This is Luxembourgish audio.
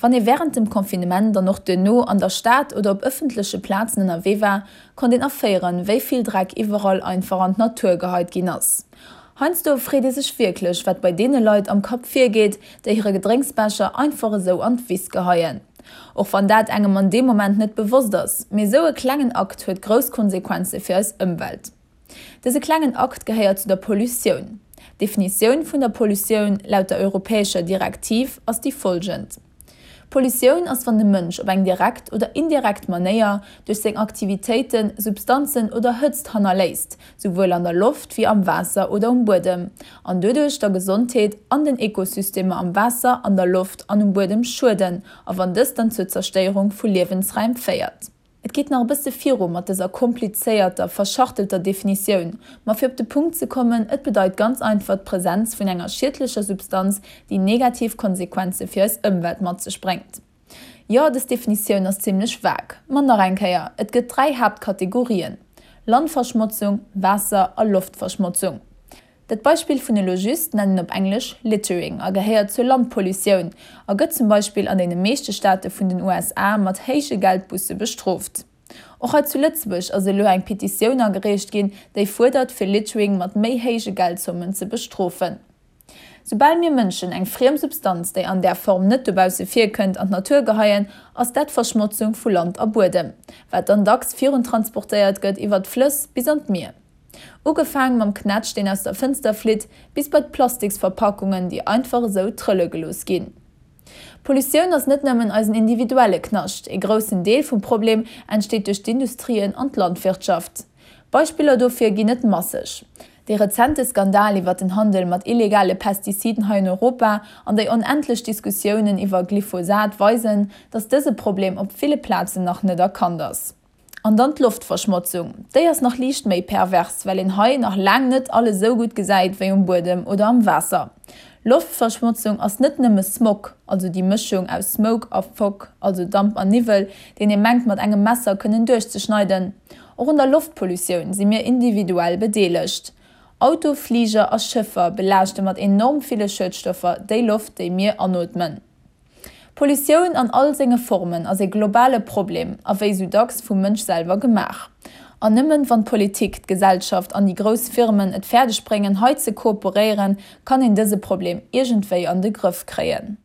Wann ee wärend dem Confinement an och duerno an der Stad oder op ëffentleche Plazen ënnerwee war, konnt een erféieren, wéi vill Dreck iwwerall einfach an d'Natur geheit ginn ass. Heiansdo freet ee sech wierklech, wat bei deene Leit am Kapp virgeet, déi hire Gedrénksbecher einfach esou an d'Wiss geheien. Och wann dat engem an deem Moment net bewosst ass, mee esou e klengen Akt huet grouss Konsequenze fir eis Ëmwelt. Dëse klengen Akt gehéiert zu der Pollutioun. D'Definitioun vun der Pollutioun laut der europäescher Direktiv ass déi folgend, Pollutioun ass wann de Mënsch op eng direkt oder indirekt Manéier duerch seng Aktivitéiten Substanzen oder Hëtzt hannerléisst, souwuel an der Loft wéi am Waasser oder um Buedem, an doduerch der Gesondheet an den Ekosystemer am Waasser, an der Loft an um Buedem schueden a wann dëst dann zur Zerstéierung vu Liewensräim féiert. Et geet nach e bësse viru mat dëser komplizéierter, verschachtelter Definitioun, ma fir op de Punkt ze kommen, et bedeit ganz einfach d'Presenz vun enger schiedlecher Substanz, déi negativ Konsequenze fir eis Ëmwelt mat sech bréngt. Jo, dës Definitioun ass zimmlech vague, ma nach eng Kéier, et gëtt 3 Haaptkategorien, Landverschmotzung, Waasser a Loftverschmotzung. Dat Beispill vun elo just nennen op Englesch Littering a gehéiert zur Landpollutioun a gëtt zum Beispill an deene meeschte Staate vun den USA mat héije Geldbusse bestrooft. Och hei zu Lëtzebuerg ass elo eng Petitioun agereecht ginn, déi fuerdert fir Littering mat méi héije Geldzommen ze bestrofen. Soubal mir Mënschen eng friem Substanz, déi an där Form net dobausse virkënnt, an d'Natur geheien, ass dat Verschmotzung vu Land a Buedem, wat dann dacks viruntransportéiert gëtt iwwer d'Flëss bis an d'Mier. Ugefaang mam Knätsch deen aus der Fënster flitt, bis bei d'Plastiksverpackungen déi einfach esou trëlle gelooss ginn. Pollutioun ass net nëmmen eisen individuelle Knascht, ee groussen Deel vum Problem entsteet duerch d'Industrien an d'Landwirtschaft. Beispiller dofir ginn et masseg. Dee rezente Skandal iwwer den Handel mat illegale Pestiziden hei an Europa an déi onendlech Diskussiounen iwwer Glyphosat weisen, datt dëse Problem op ville Plazen nach net erkannt ass. An dann d'Loftverschmotzung, déi ass nach liicht méi pervers, well een hei nach laang net alles esou gutt gesäit wéi um Buedem oder am Waasser. Loftverschmotzung ass net nëmme Smog, also déi Mëschung aus Smoke a Fog, also Damp an Niwwel, deen ee mengt mat engem Messer kënnen duerchzeschneiden. Och un der Loftpollutioun si mir individuell bedeelegt. Auto, Fliger a Schëffer belaaschte mat enorm ville Schuedstoffer déi Loft, déi mir anootmen. Pollutioun an all senge Formen ass ee globale Problem a wéi sou dacks vum Mënsch selwer gemaach. An nëmmen wann d'Politik, d'Gesellschaft an déi grouss Firmen et fäerdeg bréngen hei ze kooperéieren, kann een dëse Problem iergendwéi an de Grëff kréien.